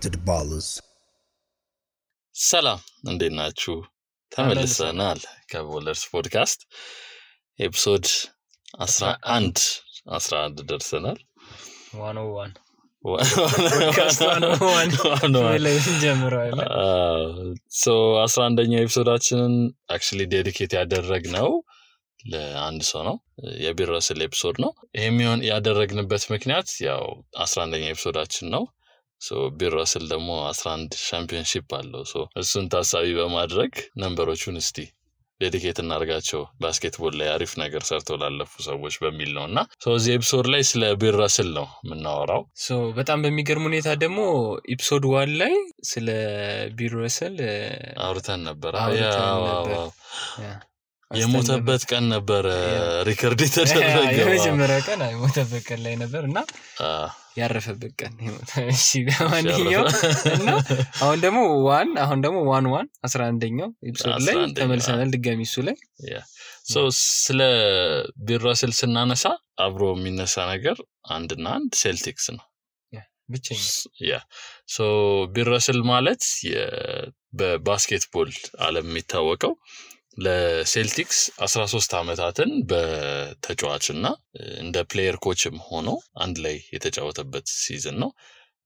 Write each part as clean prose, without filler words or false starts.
to the ballers. ሰላም እንዴት ናችሁ? ተመልሰናል ከቦለርስ ፖድካስት ኤፒሶድ 11 ደርሰናል። 101 ፖድካስት 101 ላይ ጀምሯል። ሶ 11ኛው ኤፒሶዳችንን actually dedicate ያደረግነው ለአንድ ሰው ነው። የቢረስል ኤፒሶድ ነው። ይሄም ያደረግንበት ምክንያት ያው 11ኛው ኤፒሶዳችን ነው። ሶ ቢረስል ደግሞ 11 ሻምፒዮንሺፕ አለው። ሶ እሱን ታሳቢ በማድረግ ነምበሮቹን እስቲ ዴዲኬት እናርጋቸው ባስኬትቦል ላይ አሪፍ ነገር ሰርተው ላለፉ ሰዎች በሚል ነውና ሶ እዚህ ኤፒሶድ ላይ ስለ ቢረስል ነው የምናወራው። ሶ በጣም በሚገርም ሁኔታ ደግሞ ኤፒሶድ 1 ላይ ስለ ቢረስል አውርተን ነበር። የሞተበት ቀን ነበር ሪከርድ የተደረገው። የመጀመሪያ ቀን የሞተበት ቀን ላይ ነበርና ያረፈበት ቀን እሺ በማንኛው እና አሁን ደግሞ 11ኛው ኤፒሶድ ላይ ተመልሰናል ድጋሚ እሱ ላይ ሶ ስለ ቢረስል ስናነሳ አብሮ የሚነሳ ነገር አንድና አንድ ሴልቲክስ ነው ብቻኛ ሶ ቢረስል ማለት በባስኬትቦል ዓለም የሚታወቀው ለሴልቲክስ 13 አመታትን በተጫዋችና እንደ ፕሌየር ኮችም ሆኖ አንድ ላይ የተጫወተበት ሲዝን ነው።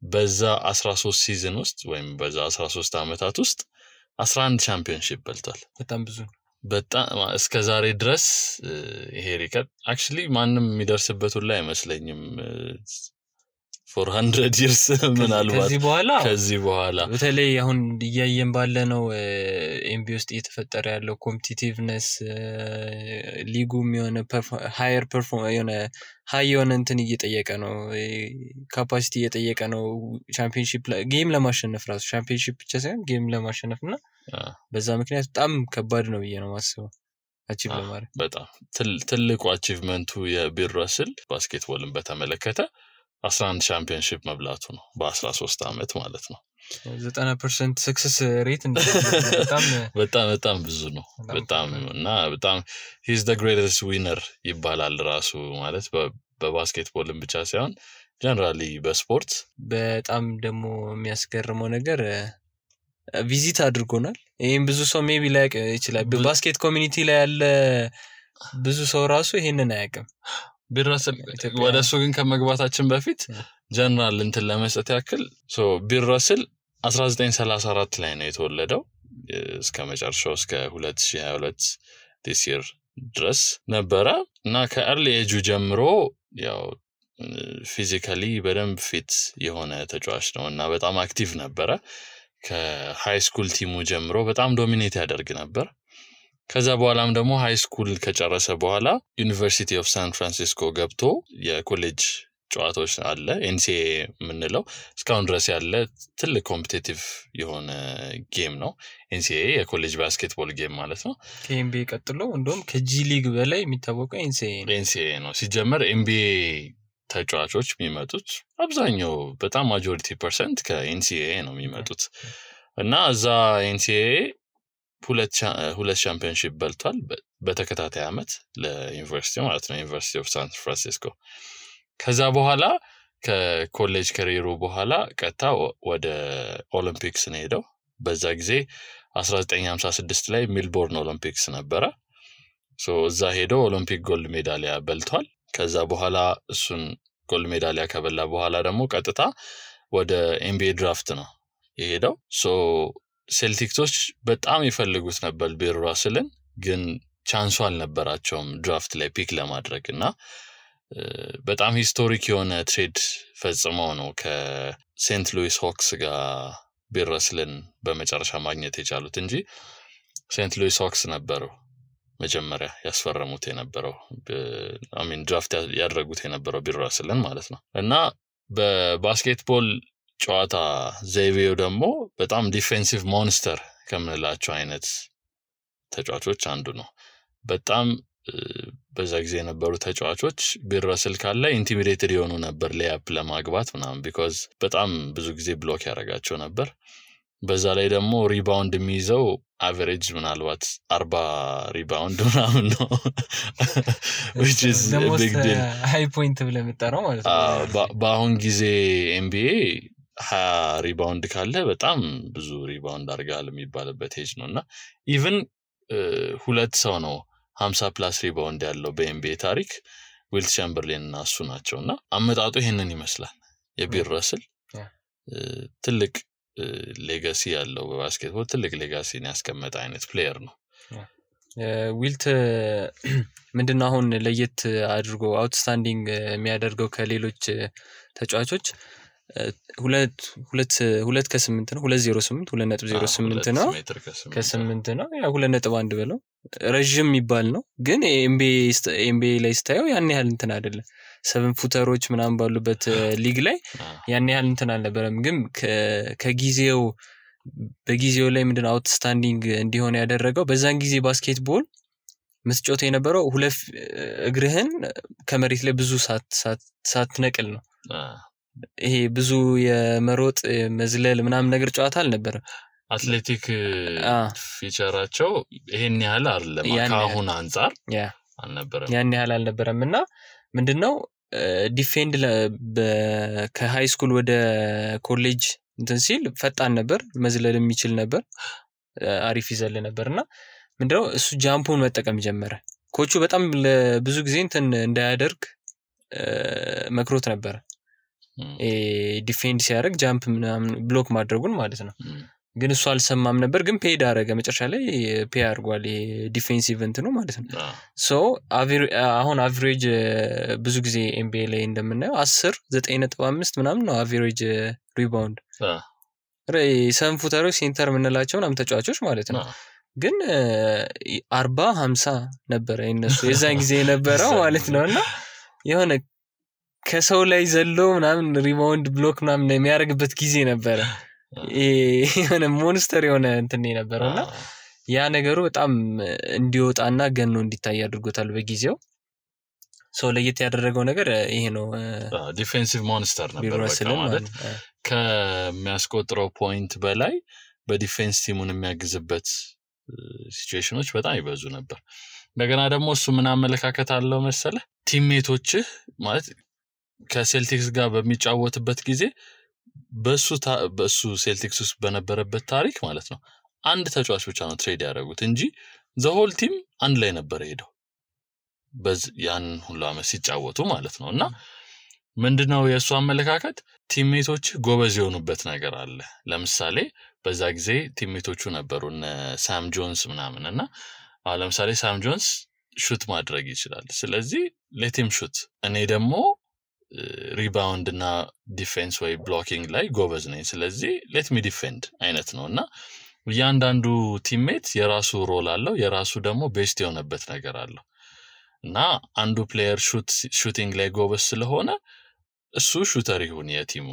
በዛ 13 ሲዝን ውስጥ ወይም በዛ 13 አመታት ውስጥ 11 ቻምፒዮንሺፕ በልቷል። በጣም እስከ ዛሬ ድረስ ይሄ ሪከርድ actually ማንንም የሚደርስበት ሁሉ አይመስለኝም። 400 years ምናልባት ከዚህ በኋላ በተለይ አሁን እያየን ባለነው ኤምቢ ውስጥ እየተፈጠረ ያለው ኮምፒቲቲቭነስ ሊጉም የሆነ ሃየር ሃይ የሆነ እንትን እየጠየቀ ነው፣ ካፓሲቲ እየጠየቀ ነው። ቻምፒዮንሺፕ ጌም ለማሸነፍ ራሱ ቻምፒዮንሺፕ ብቻ ሳይሆን ጌም ለማሸነፍና በዛ ምክንያት በጣም ከባድ ነው ብዬ ነው ማስበው አቺቭ ለማድረግ። በጣም ትልቁ አቺቭመንቱ የቢረስል ባስኬትቦልን በተመለከተ 11 ቻምፒዮንሺፕ መብላቱ ነው በ13 አመት ማለት ነው። 90% ሰክሰስ ሬት በጣም ብዙ ነው። በጣም he's the greatest winner ይባላል ራሱ ማለት በባስኬትቦልም ብቻ ሳይሆን ጀነራሊ በስፖርት። በጣም ደግሞ የሚያስገርመው ነገር ቪዚት አድርጎናል። ይሄን ብዙ ሰው ሜቢ ላይ ይችላል በባስኬት ኮሚኒቲ ላይ ያለ ብዙ ሰው ራሱ ይሄንን አያውቅም። ቢረስል ወደሱ ግን ከመግባታችን በፊት ጀነራል እንትን ለመስጠት ያክል ሶ ቢረስል 1934 ላይ ነው የተወለደው እስከ መጨረሻው እስከ 2022 this year ድረስ ነበረ እና ከኤርሊ ኤጁ ጀምሮ ያው ፊዚካሊ በደንብ ፊት የሆነ ተጫዋች ነው እና በጣም አክቲቭ ነበረ። ከሃይ ስኩል ቲሙ ጀምሮ በጣም ዶሚኔት ያደርግ ነበር። ከዛ በኋላም ደግሞ ሃይ ስኩል ከጨረሰ በኋላ ዩኒቨርሲቲ ኦፍ ሳን ፍራንሲስኮ ገብቶ የኮሌጅ ጨዋታዎች አለ ኤንሲኤ የምንለው እስካሁን ድረስ ያለ ትልቅ ኮምፒቲቲቭ የሆነ ጌም ነው። ኤንሲኤ የኮሌጅ ባስኬትቦል ጌም ማለት ነው። ከኤንቢኤ ቀጥሎ እንደውም ከጂ ሊግ በላይ የሚታወቀው ኤንሲኤ ነው። ሲጀመር ኤንቢኤ ተጫዋቾች የሚመጡት አብዛኛው በጣም ማጆሪቲ ፐርሰንት ከኤንሲኤ ነው የሚመጡት እና እዛ ኤንሲኤ ሁለት ቻምፒዮንሺፕ በልቷል በተከታታይ አመት ለዩኒቨርሲቲ ማለት ነው ዩኒቨርሲቲ ኦፍ ሳን ፍራንሲስኮ። ከዛ በኋላ ከኮሌጅ ካሪየሩ በኋላ ቀጥታ ወደ ኦሊምፒክስ ነው ሄደው። በዛ ጊዜ 1956 ላይ ሜልቦርን ኦሊምፒክስ ነበረ። ሶ እዛ ሄደው ኦሊምፒክ ጎልድ ሜዳሊያ በልቷል። ከዛ በኋላ እሱን ጎልድ ሜዳሊያ ከበላ በኋላ ደግሞ ቀጥታ ወደ ኤንቢኤ ድራፍት ነው የሄደው። ሶ ሴልቲክሶች በጣም ይፈልጉት ነበር ቢረስልን ግን ቻንሱ አልነበራቸውም ድራፍት ላይ ፒክ ለማድረግና በጣም ሂስቶሪክ የሆነ ትሬድ ፈጽመው ነው ከሴንት ሉዊስ ሆክስ ጋር ቢረስልን በመጨረሻ ማግኘት የቻሉት እንጂ ሴንት ሉዊስ ሆክስ ነበሩ መጀመሪያ ያስፈረሙት የነበረው ድራፍት ያደረጉት የነበረው ቢረስልን ማለት ነው። እና በባስኬትቦል ጨዋታ ዘይቤው ደግሞ በጣም ዲፌንሲቭ ሞንስተር ከምንላቸው አይነት ተጫዋቾች አንዱ ነው። በጣም በዛ ጊዜ የነበሩ ተጫዋቾች ቢረስል ካለ ኢንቲሚዴትድ የሆኑ ነበር ሌያፕ ለማግባት ምናምን because በጣም ብዙ ጊዜ ብሎክ ያደርጋቸው ነበር። በዛ ላይ ደግሞ ሪባውንድ የሚይዘው አቨሬጅ ምናልባት 40 ሪባውንድ ምናምን ነው which is a big deal high point ብለህ የምትጠራው ማለት ነው። በአሁን ጊዜ NBA ሪባውንድ ካለ በጣም ብዙ ሪባውንድ አድርጋል የሚባልበት ኤጅ ነውና ኢቭን ሁለት ሰው ነው 50 ፕላስ ሪባውንድ ያለው በኤንቢኤ ታሪክ ዊልት ቻምበርሌን እና እሱ ናቸውና አመጣጡ ይሄንን ይመስላል የቢል ረስል ትልቅ ሌጋሲ ያለው በባስኬትቦል ትልቅ ሌጋሲን ያስቀመጠ አይነት ፕሌየር ነው ዊልት ምንድነው አሁን ለየት አድርጎ አውትስታንዲንግ የሚያደርገው ከሌሎች ተጫዋቾች 2 ከ8 ነው 208 2.08 ነው ከ8 ነው ያ 2.1 ብለው ረጅም የሚባል ነው ግን ኤምቢኤ ላይ ስታየው ያን ያህል እንትን አይደለም 7 ፉተሮች ምናምን ባሉበት ሊግ ላይ ያን ያህል እንትን አልነበረም ግን በጊዜው ላይ ምንድነው አውትስታንዲንግ እንዲሆን ያደረገው በዛን ጊዜ ባስኬትቦል መስጮት የነበረው ሁለት እግርህን ከመሬት ላይ ብዙ ሳትነቅል ነው ይሄ ብዙ የመሮጥ መዝለል ምናምን ነገር ጨዋታ አልነበረ አትሌቲክ ፊቸራቸው ይሄን ያህል አይደለም ካሁን አንፃር አልነበረም ያን ያህል አልነበረምና ምንድነው ዲፌንድ ከሃይ ስኩል ወደ ኮሌጅ እንትን ሲል ፈጣን ነበር መዝለል የሚችል ነበር አሪፍ ይዘል ነበርና ምንድነው እሱ ጃምፑን መጠቀም ጀመረ ኮቹ በጣም ብዙ ጊዜ እንትን እንዳያደርግ መክሮት ነበር ዲፌንድ ሲያደርግ ጃምፕ ምናምን ብሎክ ማድረጉን ማለት ነው ግን እሱ አልሰማም ነበር ግን ፔድ አረገ መጨረሻ ላይ ፔ አርጓል ዲፌንሲቭ እንትኑ ማለት ነው ሶ አሁን አቨሬጅ ብዙ ጊዜ ኤምቢኤ ላይ እንደምናየው 10 9.5 ምናምን ነው አቨሬጅ ሪባውንድ ሰም ፉተሮች ሴንተር ምንላቸው ምናምን ተጫዋቾች ማለት ነው ግን 40 50 ነበር እነሱ የዛን ጊዜ የነበረው ማለት ነውና የሆነ ከሰው ላይ ዘሎ ምናምን ሪባውንድ ብሎክ ምናምን የሚያደርግበት ጊዜ ነበር የሆነ ሞንስተር የሆነ እንትን ነበርና ያ ነገሩ በጣም እንዲወጣና ገኖ እንዲታይ አድርጎታል በጊዜው ሶ ለየት ያደረገው ነገር ይሄ ነው ዲፌንሲቭ ሞንስተር ነበር ማለት ከሚያስቆጥረው ፖይንት በላይ በዲፌንስ ቲሙን የሚያግዝበት ሲቹዌሽኖች በጣም ይበዙ ነበር እንደገና ደግሞ እሱ ምን አመለካከት አለው መሰለ ቲምሜቶች ማለት ከሴልቲክስ ጋር በሚጫወትበት ጊዜ በሱ ሴልቲክስ ውስጥ በነበረበት ታሪክ ማለት ነው አንድ ተጫዋች ብቻ ነው ትሬድ ያደረጉት እንጂ ዘ ሆል ቲም አንድ ላይ ነበር ሄደው ያን ሁሉ አመት ሲጫወቱ ማለት ነውና ምንድነው የሱ አመለካከት ቲምሜቶች ጎበዝ የሆኑበት ነገር አለ ለምሳሌ በዛ ጊዜ ቲምሜቶቹ ነበሩና ሳም ጆንስ ምናምንና ለምሳሌ ሳም ጆንስ ሹት ማድረግ ይችላል ስለዚህ ሌቲም ሹት እኔ ደግሞ ሪባውንድ እና ዲፌንስ ወይ ብሎኪንግ ላይ ጎበዝ ነኝ ስለዚህ ሌት ሚ ዲፌንድ አይነት ነውና ያንዳንዱ ቲምሜት የራሱ ሮል አለው የራሱ ደግሞ ቤስት የሆነበት ነገር አለው እና አንዱ ፕሌየር ሹቲንግ ላይ ጎበዝ ስለሆነ እሱ ሹተር ይሁን የቲሙ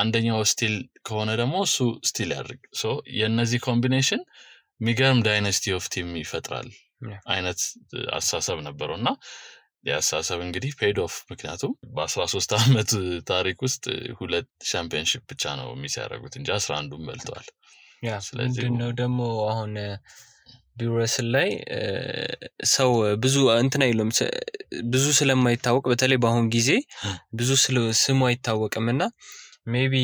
አንደኛው ስቲል ከሆነ ደግሞ እሱ ስቲል ያድርግ ሶ የነዚህ ኮምቢኔሽን ሚገርም ዳይናስቲ ኦፍ ቲም ይፈጥራል አይነት አሳሰብ ነበርና ያሳሰብ እንግዲህ ፔድ ኦፍ ምክንያቱም በ13 አመት ታሪክ ውስጥ 2 ቻምፒየንሺፕ ብቻ ነው የሚያደርጉት እንጂ 11ዱን በልተዋል ያ ስለዚህ ነው ደግሞ አሁን ቢረስል ላይ ሰው ብዙ እንትን አይሉም ብዙ ስለማይታወቅ በተለይ በአሁን ጊዜ ብዙ ስሙ አይታወቅምና ሜቢ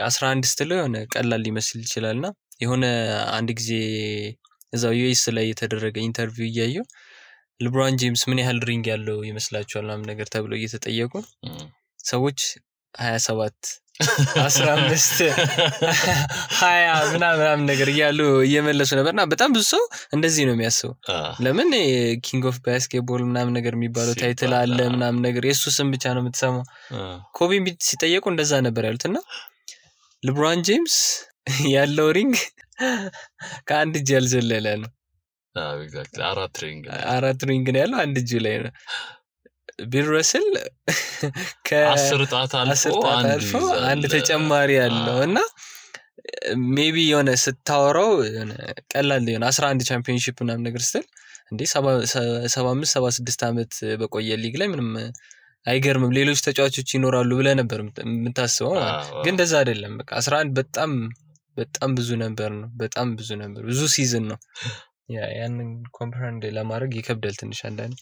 11 ስትል የሆነ ቀላል ሊመስል ይችላልና የሆነ አንድ ጊዜ እዛው ዩኤስ ላይ የተደረገ ኢንተርቪው እያየው ሌብሮን ጄምስ ምን ያህል ሪንግ ያለው ይመስላችኋል ምናምን ነገር ተብሎ እየተጠየቁ ሰዎች 27 15 20 ምናምን ነገር እያሉ እየመለሱ ነበርና በጣም ብዙ ሰው እንደዚህ ነው የሚያስበው ለምን ኪንግ ኦፍ ባስኬትቦል ምናምን ነገር የሚባለው ታይትል አለ ምናምን ነገር የሱ ስም ብቻ ነው የምትሰማው ኮቢ ሲጠየቁ እንደዛ ነበር ያሉትና ሌብሮን ጄምስ ያለው ሪንግ ከአንድ እጅ ያልዘለለ ነው ኤግዛክትሊ አራት ሪንግ ነው ያለው አንድ እጅ ላይ ነው ቢል ረስል ከ10 ጣት አልፎ አንድ ተጨማሪ ያለውና ሜቢ የሆነ ስታወራው ቀላል የሆነ 11 ቻምፒየንሺፕ ምናምን ነገር ስትል እንዴ 75 76 አመት በቆየ ሊግ ላይ ምንም አይገርምም ሌሎች ተጫዋቾች ይኖራሉ ብለ ነበር የምታስበው ግን እንደዛ አይደለም በቃ 11 በጣም ብዙ ነበር ነው በጣም ብዙ ነበር ብዙ ሲዝን ነው ያንን ኮምፕሬንድ ለማድረግ ይከብዳል ትንሽ አንዳንዴ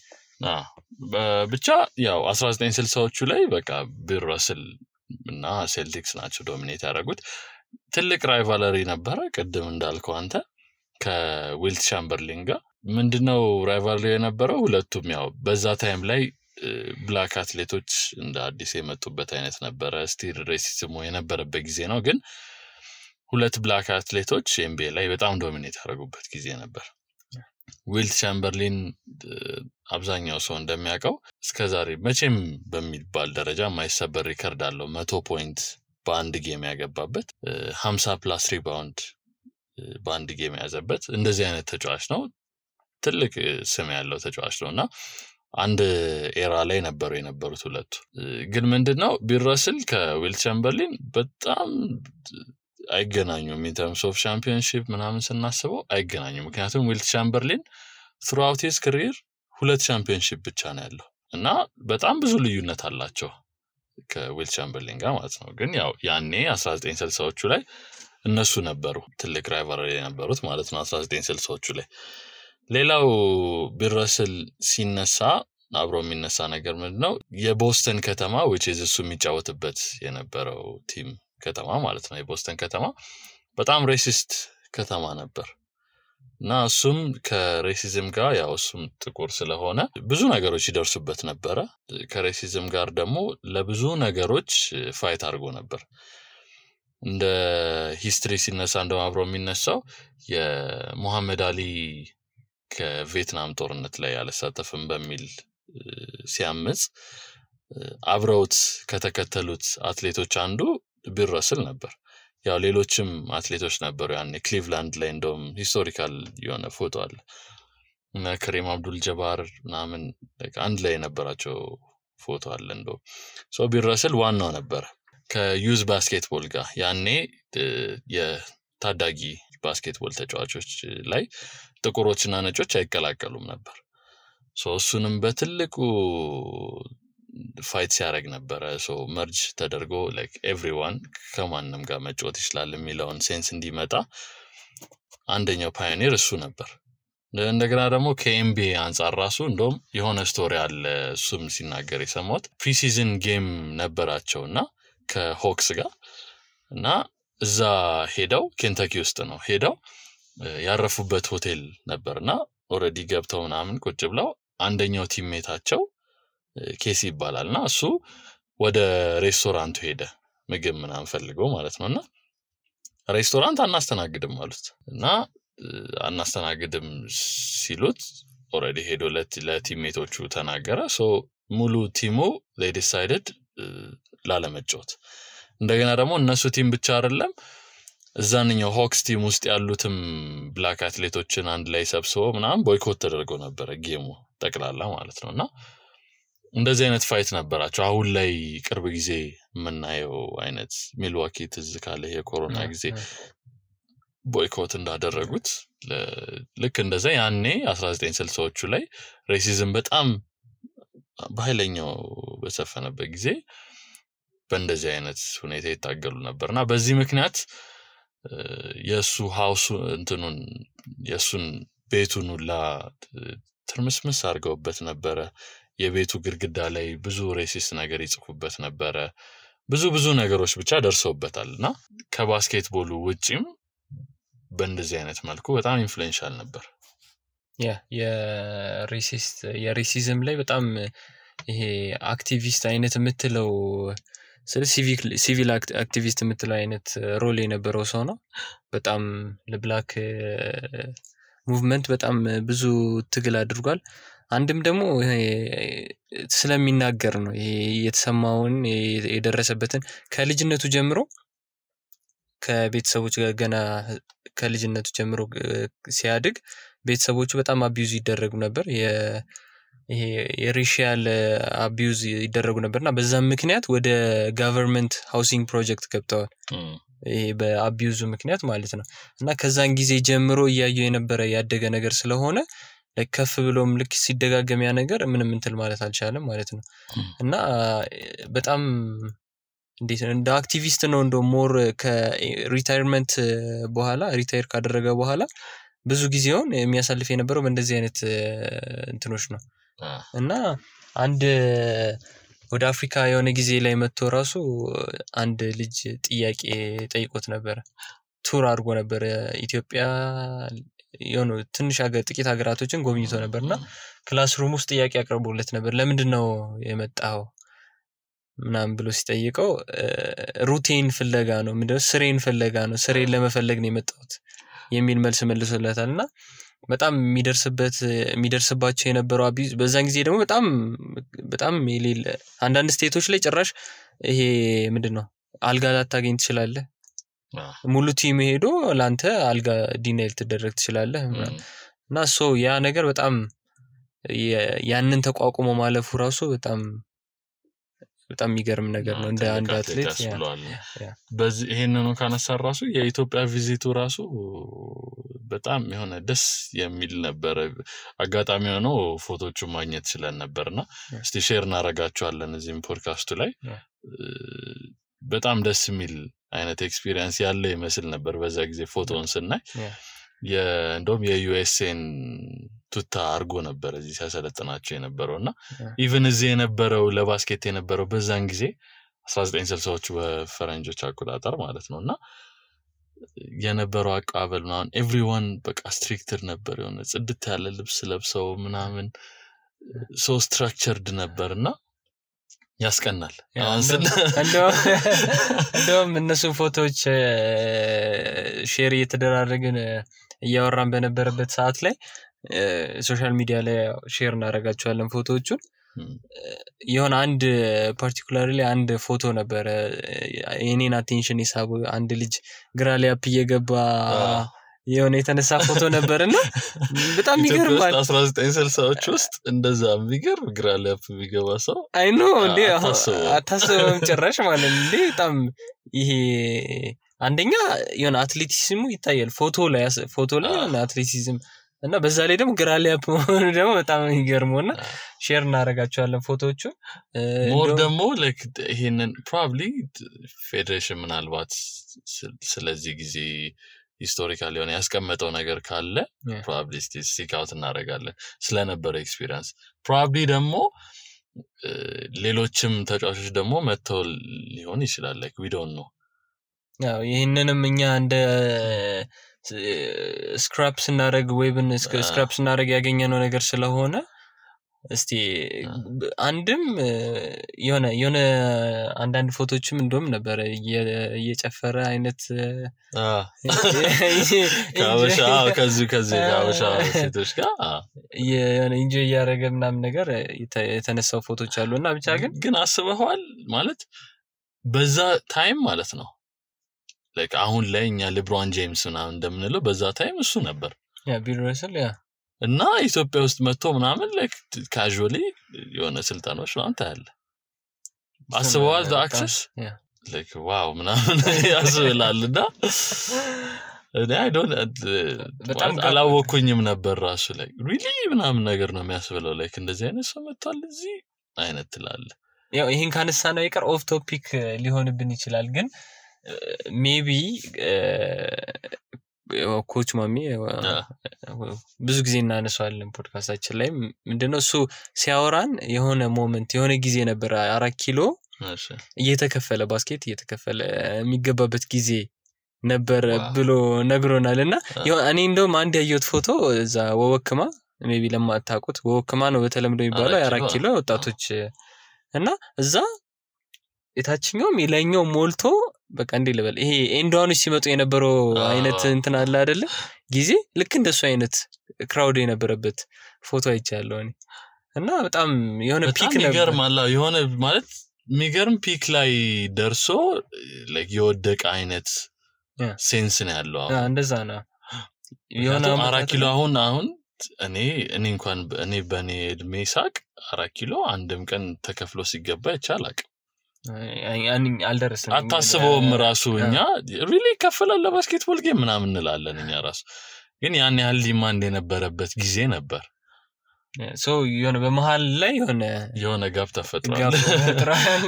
ብቻ ያው 1960ዎቹ ላይ በቃ ቢል ረስል እና ሴልቲክስ ናቸው ዶሚኔት ያደረጉት ትልቅ ራይቫለሪ ነበረ ቅድም እንዳልከው አንተ ከዊልት ቻምበርሊን ጋር ምንድነው ራይቫለሪ የነበረው ሁለቱም ያው በዛ ታይም ላይ ብላክ አትሌቶች እንደ አዲስ የመጡበት አይነት ነበረ ስቲል ሬሲዝሙ የነበረበት ጊዜ ነው ግን ሁለት ብላክ አትሌቶች ኤምቢኤ ላይ በጣም ዶሚኔት ያደረጉበት ጊዜ ነበር ዊልት ቻምበርሊን አብዛኛው ሰው እንደሚያውቀው እስከዛሬ መቼም በሚባል ደረጃ ማይሰበር ሪከርድ አለው 100 ፖይንት በአንድ ጌም ያገባበት 50 ፕላስ ሪባውንድ በአንድ ጌም ያዘበት እንደዚህ አይነት ተጫዋች ነው ትልቅ ስም ያለው ተጫዋች ነውና አንድ ኤራ ላይ የነበሩት ሁለቱ ግን ምንድነው ቢረስል ከዊልት ቻምበርሊን በጣም አይገናኙም in terms of championship ምናምን ስናስበው አይገናኙም ምክንያቱም ዊልት ቻምበርሊን throughout his career ሁለት ቻምፒዮንሺፕ ብቻ ነው ያለው እና በጣም ብዙ ልዩነት አላቸው ከዊልት ቻምበርሊን ጋር ማለት ነው ግን ያው ያኔ 1960ዎቹ ላይ እነሱ ነበሩ ትልቅ ራይቫለሪ የነበሩት ማለት ነው 1960ዎቹ ላይ ሌላው ቢረስል ሲነሳ አብሮ የሚነሳ ነገር ምንድነው የቦስተን ከተማ which is እሱ የሚጫወትበት የነበረው ቲም ከተማ ማለት ነው የቦስተን ከተማ በጣም ሬሲስት ከተማ ነበር እና እሱም ከሬሲዝም ጋር ያው እሱም ጥቁር ስለሆነ ብዙ ነገሮች ይደርሱበት ነበር ከሬሲዝም ጋር ደግሞ ለብዙ ነገሮች ፋይት አድርጎ ነበር እንደ ሂስትሪ ሲነሳ እንደው አብሮ የሚነሳው የሙሐመድ አሊ ከቪየትናም ጦርነት ላይ ያልተሳተፈም በሚል ሲያምጽ አብረውት ከተከተሉት አትሌቶች አንዱ ቢረስል ነበር ያው ሌሎችም አትሌቶች ነበሩ ያኔ ክሊቭላንድ ላይ እንደውም ሂስቶሪካል የሆነ ፎቶ አለ እና ከሪም አብዱል ጀባር ምናምን አንድ ላይ የነበራቸው ፎቶ አለ እንደው ሶ ቢረስል ዋናው ነበር ከዩዝ ባስኬትቦል ጋር ያኔ የታዳጊ ባስኬትቦል ተጫዋቾች ላይ ጥቁሮችና ነጮች አይቀላቀሉም ነበር ሶ እሱንም በትልቁ ፋይት ሲያደርግ ነበር ሶ መርጅ ተደርጎ like everyone ከማንንም ጋር መጫወት ይችላል የሚለውን ሴንስ እንዲመጣ አንደኛው ፓዮኒር እሱ ነበር እንደገና ደግሞ ከኤምቢኤ አንፃር ራሱ እንደውም የሆነ ስቶሪ አለ እሱም ሲናገር የሰማሁት ፕሪሲዝን ጌም ነበራቸውና ከሆክስ ጋር እና እዛ ሄደው ኬንታኪ ውስጥ ነው ሄደው ያረፉበት ሆቴል ነበርና ኦሬዲ ገብተው ምናምን ቁጭ ብለው አንደኛው ቲምሜታቸው ኬሲ ይባላልና እሱ ወደ ሬስቶራንቱ ሄደ ምግብ ምናምን ፈልገው ማለት ነውና ሬስቶራንት አናስተናግድም ማለት እና አናስተናግድም ሲሉት ኦሬዲ ሄዶ ለቲምሜቶቹ ተናገረ ሶ ሙሉ ቲሙ they decided ላለመጫወት እንደገና ደግሞ እነሱ ቲም ብቻ አይደለም እዛንኛው ሆክስ ቲም ውስጥ ያሉትም ብላክ አትሌቶችን አንድ ላይ ሰብስበው ምናምን ቦይኮት ተደርጎ ነበር ጌሙ ጠቅላላ ማለት ነውና እንደዚህ አይነት ፋይት ነበራቸው አሁን ላይ ቅርብ ጊዜ የምናየው አይነት ሚልዋኪ ትዝ ካለ የኮሮና ጊዜ ቦይኮት እንዳደረጉት ልክ እንደዛ ያኔ 1960ዎቹ ላይ ሬሲዝም በጣም በኃይለኛው በሰፈነበት ጊዜ በእንደዚህ አይነት ሁኔታ ይታገሉ ነበርና በዚህ ምክንያት የሱ ሃውስ እንትኑን የሱን ቤቱን ሁላ ትርምስምስ አድርገውበት ነበረ የቤቱ ግድግዳ ላይ ብዙ ሬሲስት ነገር ይጽፉበት ነበረ ብዙ ነገሮች ብቻ ደርሰውበታልና ከባስኬትቦሉ ውጪም በእንደዚህ አይነት መልኩ በጣም ኢንፍሉዌንሻል ነበር የሬሲዝም ላይ በጣም ይሄ አክቲቪስት አይነት የምትለው ስለ ሲቪል አክቲቪስት የምትለው አይነት ሮል የነበረው ሰው ነው በጣም ለብላክ ሙቭመንት በጣም ብዙ ትግል አድርጓል አንድም ደግሞ ስለሚናገር ነው ይሄ የተሰማውን የደረሰበትን ከልጅነቱ ጀምሮ ከቤተሰቦች ጋር ገና ከልጅነቱ ጀምሮ ሲያድግ ቤተሰቦቹ በጣም አቢዩዝ ይደረጉ ነበር ይሄ የሬሺያል አቢዩዝ ይደረጉ ነበርና በዛም ምክንያት ወደ ገቨርንመንት ሃውሲንግ ፕሮጀክት ገብተዋል ይሄ በአቢዩዝ ምክንያት ማለት ነው እና ከዛን ጊዜ ጀምሮ ያየው የነበረ ያደገ ነገር ስለሆነ ለከፍ ብሎም ልክ ሲደጋገም ያ ነገር ምንም እንትን ማለት አልቻለም ማለት ነው እና በጣም እንደ አክቲቪስት ነው እንደ ሞር ከሪታየርመንት በኋላ ሪታየር ካደረገ በኋላ ብዙ ጊዜውን የሚያሳልፍ የነበረው በእንደዚህ አይነት እንትኖች ነው እና አንድ ወደ አፍሪካ የሆነ ጊዜ ላይ መጥቶ ራሱ አንድ ልጅ ጥያቄ ጠይቆት ነበር ቱር አድርጎ ነበር ኢትዮጵያ የሆነ ትንሽ ጥቂት ሀገራቶችን ጎብኝቶ ነበርና ክላስሩም ውስጥ ጥያቄ አቅርቦለት ነበር ለምንድነው የመጣው ምናምን ብሎ ሲጠይቀው ሩቲን ፍለጋ ነው ምንድነው ስሬን ፍለጋ ነው ስሬን ለመፈለግ ነው የመጣሁት የሚል መልስ መልሶለታልና በጣም የሚደርስባቸው የነበረው አቢዝ በዛን ጊዜ ደግሞ በጣም የሌለ አንዳንድ ስቴቶች ላይ ጭራሽ ይሄ ምንድነው አልጋ ላታገኝ ትችላለህ ሙሉ ቲም ሄዶ ላንተ አልጋ ዲኔል ተደረግ ትችላለህ እና ያ ነገር በጣም ያንን ተቋቁሞ ማለፉ ራሱ በጣም የሚገርም ነገር ነው እንደ አንድ አትሌት በዚህ ይሄንን ካነሳ ራሱ የኢትዮጵያ ቪዚቱ ራሱ በጣም የሆነ ደስ የሚል ነበር አጋጣሚ ሆኖ ፎቶቹ ማግኘት ይችላል ነበርና እስቲ ሼር እናረጋቸዋለን እዚህም ፖድካስቱ ላይ በጣም ደስ የሚል አይነት ኤክስፒሪየንስ ያለ ይመስል ነበር በዛ ጊዜ ፎቶውን ስናይ እንደውም የዩኤስኤን ቱታ አርጎ ነበር እዚህ ሲያሰለጥናቸው የነበረውና ኢቭን እዚህ የነበረው ለባስኬት የነበረው በዛን ጊዜ 1960ዎቹ በፈረንጆች አቆጣጠር ማለት ነውና የነበረው አቀባበል ምናምን ኤቭሪዋን በቃ ስትሪክትድ ነበር የሆነ ጽድት ያለ ልብስ ለብሰው ምናምን ሶ ስትራክቸርድ ነበርና ያስቀናል እንደውም እነሱ ፎቶዎች ሼር እየተደራረግን እያወራን በነበረበት ሰዓት ላይ ሶሻል ሚዲያ ላይ ሼር እናደርጋቸዋለን ፎቶዎቹን የሆነ አንድ ፓርቲኩላርሊ አንድ ፎቶ ነበር የኔን አቴንሽን ይሳቡ አንድ ልጅ ግራሊያፕ እየገባ የሆነ የተነሳ ፎቶ ነበርና በጣም ይገርማል 1960ዎች ውስጥ እንደዛ የሚገርም ግራሊያፕ የሚገባ ሰው አይ ኖ እንዴ አታስበም ጭራሽ ማለት እንዴ በጣም ይሄ አንደኛ የሆነ አትሌቲዝሙ ይታያል ፎቶ ላይ የሆነ አትሌቲዝም እና በዛ ላይ ደግሞ ግራሊያፕ ደግሞ በጣም ይገርመውና ሼር እናደርጋቸዋለን ፎቶዎቹ ሞር ደግሞ like ይሄንን probably ፌዴሬሽን ምናልባት ስለዚህ ጊዜ ሂስቶሪካሊ ሆነ ያስቀመጠው ነገር ካለ probably stick out እናደርጋለን ስለነበረ ኤክስፒሪየንስ probably ደግሞ ሌሎችም ተጫዋቾች ደግሞ መተው ሊሆን ይችላል like we don't know ያው ይሄንንም እኛ እንደ ስክራፕስ እናደርግ ዌብን ስክራፕስ እናደርግ ያገኘነው ነገር ስለሆነ እስቲ አንድም የሆነ አንዳንድ ፎቶዎችም እንደውም ነበር እየጨፈረ አይነት ከዚህ ካበሻ ሴቶች ጋር የሆነ ኢንጆይ ያደረገ ምናምን ነገር የተነሳው ፎቶዎች አሉና ብቻ ግን አስበዋል ማለት በዛ ታይም ማለት ነው like አሁን ላይ እኛ ሌብሮን ጄምስ ምናምን እንደምንለው በዛ ታይም እሱ ነበር ቢል ረሰል እና ኢትዮጵያ ውስጥ መጥቶ ምናምን like casually የሆነ ስልጣኖች ነው ታያለ አስበዋል the access like wow ምናምን ያስብላልና I don't በጣም አላወኩኝም ነበር ራሱ like really ምናምን ነገር ነው የሚያስብለው like እንደዚህ አይነት ሰው መጥቷል እዚህ አይነት ትላለ ያው ይሄን ካነሳ ነው ይቀር ኦፍ ቶፒክ ሊሆንብን ይችላል ግን maybe ኮች ማሚ ብዙ ጊዜ እናነሳዋለን ፖድካስታችን ላይ ምንድነው እሱ ሲያወራን የሆነ ሞመንት የሆነ ጊዜ ነበር 4 ኪሎ እየተከፈለ ባስኬት እየተከፈለ የሚገባበት ጊዜ ነበር ብሎ ነግሮናልና እኔ እንደውም አንድ ያየሁት ፎቶ እዛ ወወክማ maybe ለማታውቁት ወወክማ ነው በተለምዶ የሚባለው 4 ኪሎ ወጣቶች እና እዛ የታችኛው የላይኛው ሞልቶ በቃ እንዴ ልበል ይሄ ኤንዶዋኖች ሲመጡ የነበረው አይነት እንትን አለ አይደለ ጊዜ ልክ እንደሱ አይነት ክራውድ የነበረበት ፎቶ አይቻለሁ እኔ እና በጣም የሆነ ፒክ ነበር ይገርማል የሆነ ማለት የሚገርም ፒክ ላይ ደርሶ like የወደቀ አይነት ሴንስ ነው ያለው እንደዛ ነው የሆነ 4 ኪሎ አሁን እኔ እንኳን እኔ በኔ እድሜ ሳቅ 4 ኪሎ አንድም ቀን ተከፍሎ ሲገባ ይቻላል አልደረሰም አታስበውም ራሱ እኛ ሪሊ ከፈለ ለባስኬትቦል ጌም ምናምን እንላለን እኛ ራሱ ግን ያን ያህል ዲማንድ የነበረበት ጊዜ ነበር የሆነ በመሃል ላይ የሆነ ጋፕ ተፈጥሯል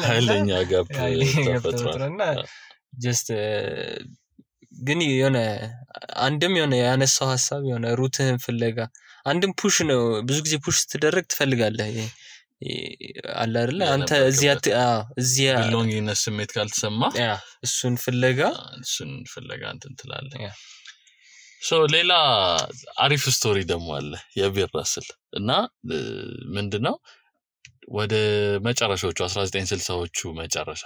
ኃይለኛ ጋፕ ተፈጥሯልና just ግን የሆነ አንድም የሆነ ያነሳው ሐሳብ የሆነ ሩትህን ፍለጋ አንድም ፑሽ ነው ብዙ ጊዜ ፑሽ ትደረግ ትፈልጋለህ አለ አይደል አንተ እዚያ ቢሎንጊንግነስ ስሜት ካልተሰማ እሱን ፍለጋ እንትን ትላለህ ሶ ሌላ አሪፍ ስቶሪ ደግሞ አለ የቢል ራስል እና ምንድነው ወደ መጨረሻዎቹ 1960ዎቹ መጨረሻ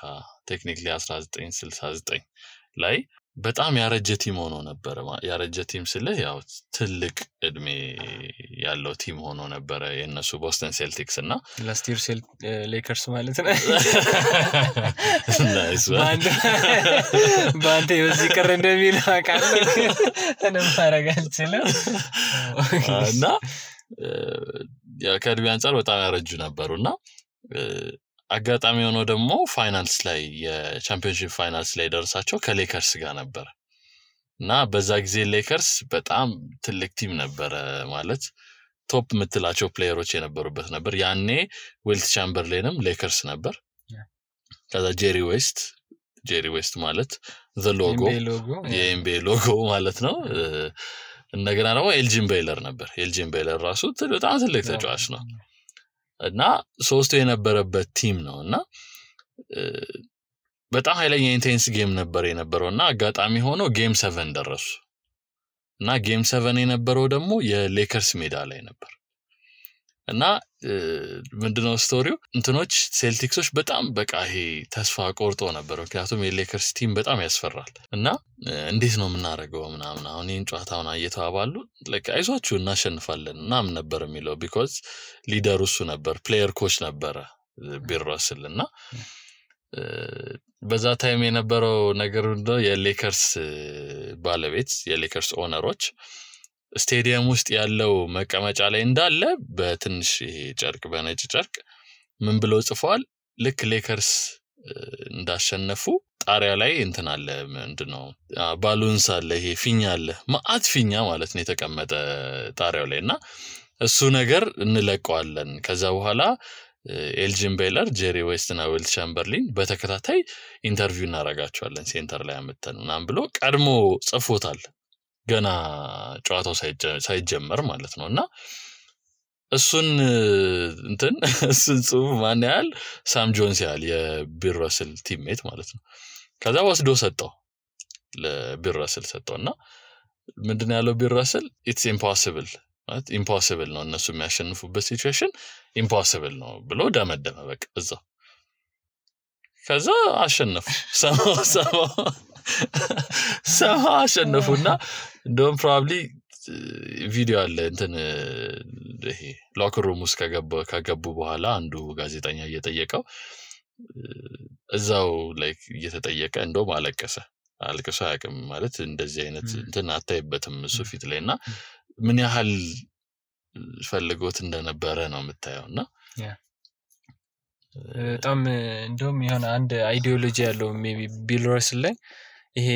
ቴክኒካሊ 1969 ላይ በጣም ያረጀ ቲም ሆኖ ነበር ያረጀ ቲም ስለ ያው ትልቅ እድሜ ያለው ቲም ሆኖ ነበር የነሱ ቦስተን ሴልቲክስ እና ላስት ይር ሌከርስ ማለት ነው ናይስ ባንተ በዚህ ቀረ እንደሚል አቃለ እኔ ማረጋልችለ እና ያ ከድቢ አንፃር በጣም ያረጁ ነበርና አጋጣሚ ሆኖ ደግሞ ፋይናልስ ላይ የቻምፒዮንሺፕ ፋይናልስ ላይ ደርሳቸው ከሌከርስ ጋር ነበር እና በዛ ጊዜ ሌከርስ በጣም ትልቅ ቲም ነበር ማለት ቶፕ ምትላቸው ፕሌየሮች የነበሩበት ነበር ያኔ ዊልት ቻምበርሌንም ሌከርስ ነበር ከዛ ጄሪ ዌስት ማለት the logo የኤምቢኤ ሎጎ ማለት ነው እንደገና ደግሞ ኤልጂን ቤይለር ነበር ኤልጂን ቤይለር ራሱ በጣም ትልቅ ተጫዋች ነው እና ሶስቱ የነበረበት ቲም ነውና በጣም ኃይለኛ ኢንቴንስ ጌም ነበር የነበረውና አጋጣሚ ሆኖ ጌም 7 ደረሱ እና ጌም 7 የነበረው ደግሞ የሌከርስ ሜዳ ላይ ነበር እና ምንድነው ስቶሪው እንትኖች ሴልቲክሶች በጣም በቃ ይሄ ተስፋ ቆርጦ ነበር ምክንያቱም የሌከርስ ቲም በጣም ያስፈራል እና እንዴት ነው ምናረገው ምናምን አሁን ይህን ጨዋታውን እየተባባሉ አይዟችሁ እናሸንፋለን እናም ነበር የሚለው ቢኮዝ ሊደሩ እሱ ነበር ፕሌየር ኮች ነበረ ቢል ራስል እና በዛ ታይም የነበረው ነገር እንደው የሌከርስ ባለቤት የሌከርስ ኦነሮች ስቴዲየም ውስጥ ያለው መቀመጫ ላይ እንዳለ በትንሽ ይሄ ጨርቅ በነጭ ጨርቅ ምን ብለው ጽፈዋል ልክ ሌከርስ እንዳሸነፉ ጣሪያ ላይ እንትን አለ ምንድነው ባሉንስ አለ ይሄ ፊኛ አለ ማአት ፊኛ ማለት ነው የተቀመጠ ጣሪያው ላይና እሱ ነገር እንለቀዋለን ከዛ በኋላ ኤልጂን ቤይለር ጄሪ ዌስት እና ዊልት ቻምበርሊን በተከታታይ ኢንተርቪው እናረጋቸዋለን ሴንተር ላይ አመጣን ብሎ ቀድሞ ጽፎታል ገና ጨዋታው ሳይጀመር ማለት ነውና እሱን ጽሁፍ ማን ያህል ሳም ጆንስ ያህል የቢል ራስል ቲምሜት ማለት ነው ከዛ ወስዶ ሰጠው ለቢል ራስል ሰጠውና ምንድነው ያለው ቢል ራስል ኢትስ ኢምፖሲብል ነው እነሱ የሚያሸንፉበት ሲቹዌሽን ኢምፖሲብል ነው ብሎ ደመደመ በቃ እዛው ከዛ አሸነፉ ሰማ አሸነፉና እንደውም ፕሮባብሊ ቪዲዮ አለ እንትን ይሄ ሎከር ሩም ውስጥ ከገቡ በኋላ አንዱ ጋዜጠኛ እየጠየቀው እዛው ላይክ እየተጠየቀ እንደውም አልቅሶ ያቅም ማለት እንደዚህ አይነት እንትን አታይበትም እሱ ፊት ላይና ምን ያህል ፈልጎት እንደነበረ ነው የምታየውና በጣም እንደውም የሆነ አንድ አይዲዮሎጂ ያለው ሜቢ ቢል ራስል ላይ ይሄ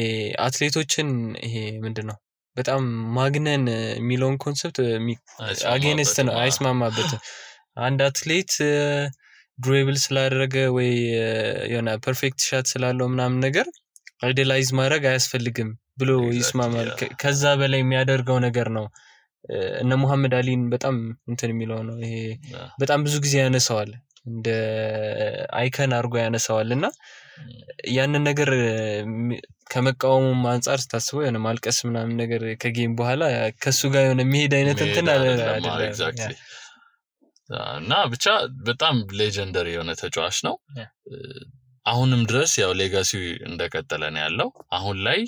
አትሌቶችን ይሄ ምንድነው በጣም ማግነን የሚለውን ኮንሰፕት አጌንስት ነው አይስማማበትም አንድ አትሌት ድሪብል ስላደረገ ወይ የሆነ ፐርፌክት ሻት ስላለው ምናምን ነገር አይዲያላይዝ ማድረግ አያስፈልግም ብሎ ይስማማል ከዛ በላይ የሚያደርገው ነገር ነው እነ መሐመድ አሊን በጣም እንትን የሚለው ነው ይሄ በጣም ብዙ ጊዜ ያነሳዋል እንደ አይከን አርጎ ያነሳዋልና ያንን ነገር ከመቃወሙም አንፃር ታስበው የሆነ ማልቀስ ምናምን ነገር ከጌም በኋላ ከሱ ጋር የሆነ መሄድ አይነት እንትን አይደለም ኤግዛክትሊ እና ብቻ በጣም ሌጀንደሪ የሆነ ተጫዋች ነው አሁንም ድረስ ያው ሌጋሲው እንደቀጠለ ነው ያለው አሁን ላይ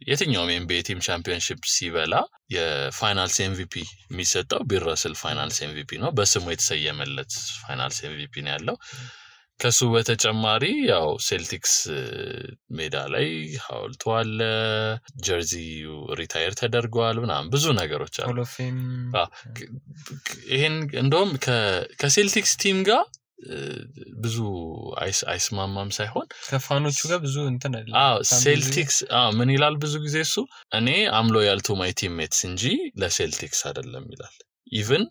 የትኛውም ኤምቢኤ ቲም ቻምፒዮንሺፕ ሲበላ የፋይናልስ ኤምቪፒ የሚሰጠው ቢል ራስል ፋይናልስ ኤምቪፒ ነው በስሙ የተሰየመለት ፋይናልስ ኤምቪፒ ነው ያለው ከሱ በተጨማሪ ያው ሴልቲክስ ሜዳ ላይ ሐውልቱ አለ ጀርዚው ሪታየር ተደርጓል ምናምን ብዙ ነገሮች አሉ ይሄን እንደውም ከሴልቲክስ ቲም ጋር ብዙ አይስማማም ሳይሆን ከፋኖቹ ጋር ብዙ እንትን አይደለም ሴልቲክስ ምን ይላል ብዙ ጊዜ እሱ እኔ አም ሎያል ቱ ማይ ቲምሜትስ እንጂ ለሴልቲክስ አይደለም ይላል ኢቭን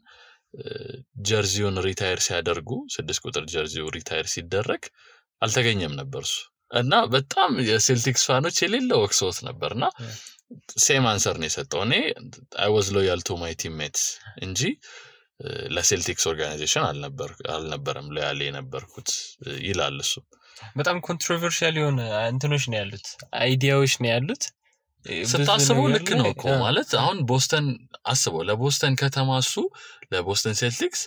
ጀርዚውን ሪታየር ሲያደርጉ 6 ቁጥር ጀርዚው ሪታየር ሲደረግ አልተገኘም ነበርሱ እና በጣም የሴልቲክስ ፋኖች የሌለው ወክሶት ነበርና ሴም አንሰር ነው የሰጠው እኔ I was loyal to my teammates እንጂ ለሴልቲክስ ኦርጋናይዜሽን አልነበረም ሎያል የነበርኩት ይላል እሱ በጣም ኮንትሮቨርሻል የሆነ እንትኖች ነው ያሉት አይዲያዎች ነው ያሉት ስታስበው ልክ ነው እኮ ማለት አሁን ቦስተን አስበው ለቦስተን ከተማ እሱ ለቦስተን ሴልቲክስ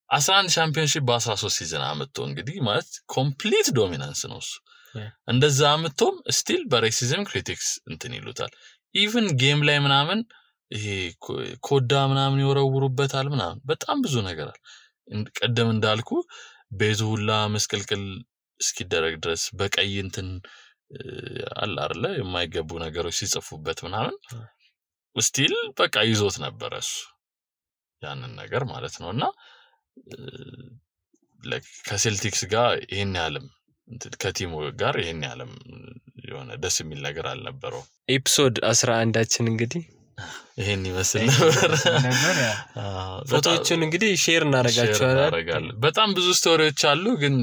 11 ቻምፒዮንሺፕ በ13 ሲዝን አመጣ እንግዲህ ማለት ኮምፕሊት ዶሚናንስ ነው እሱ እንደዛ አመጣም ስቲል በሬሲዝም ክሪቲክስ እንትን ይሉታል ኢቭን ጌም ላይ ምናምን ይሄ ኮዳ ምናምን ይወረውሩበታል ምናምን በጣም ብዙ ነገር አለ ቀደም እንዳልኩ ቤዙ ሁላ መስቀልቅል እስኪደረግ ድረስ በቀይ እንትን አለ አይደለ የማይገቡ ነገሮች ሲጽፉበት ምናምን ስቲል በቃ ይዞት ነበር እሱ ያንን ነገር ማለት ነውና ከሴልቲክስ ጋር ይሄን ያለም ከቲሙ ጋር ይሄን ያለም የሆነ ደስ የሚል ነገር አልነበረው ኤፒሶድ 11 እንግዲህ ይሄን ይመስል ነበር ፎቶዎችን እንግዲህ ሼር እናረጋቸዋለን በጣም ብዙ ስቶሪዎች አሉ ግን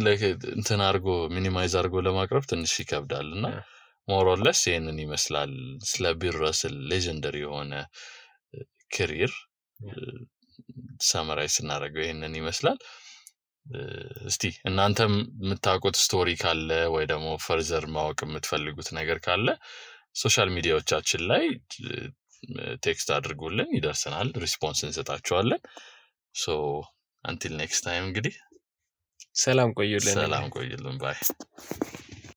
እንትን አርጎ ሚኒማይዝ አርጎ ለማቅረብ ትንሽ ይከብዳልና ሞር ኦር ለስ ይሄንን ይመስላል ስለ ቢል ረስል ሌጀንደሪ የሆነ ካሪየር ሳመራይዝ እናረጋው ይሄንን ይመስላል እስቲ እናንተም የምታውቁት ስቶሪ ካለ ወይ ደግሞ ፈርዘር ማወቅ የምትፈልጉት ነገር ካለ ሶሻል ሚዲያዎቻችን ላይ ቴክስት አድርጉልን ይደርሰናል ሪስፖንስ እንሰጣቸዋለን ሶ until next time እንግዲህ ሰላም ቆዩልን ባይ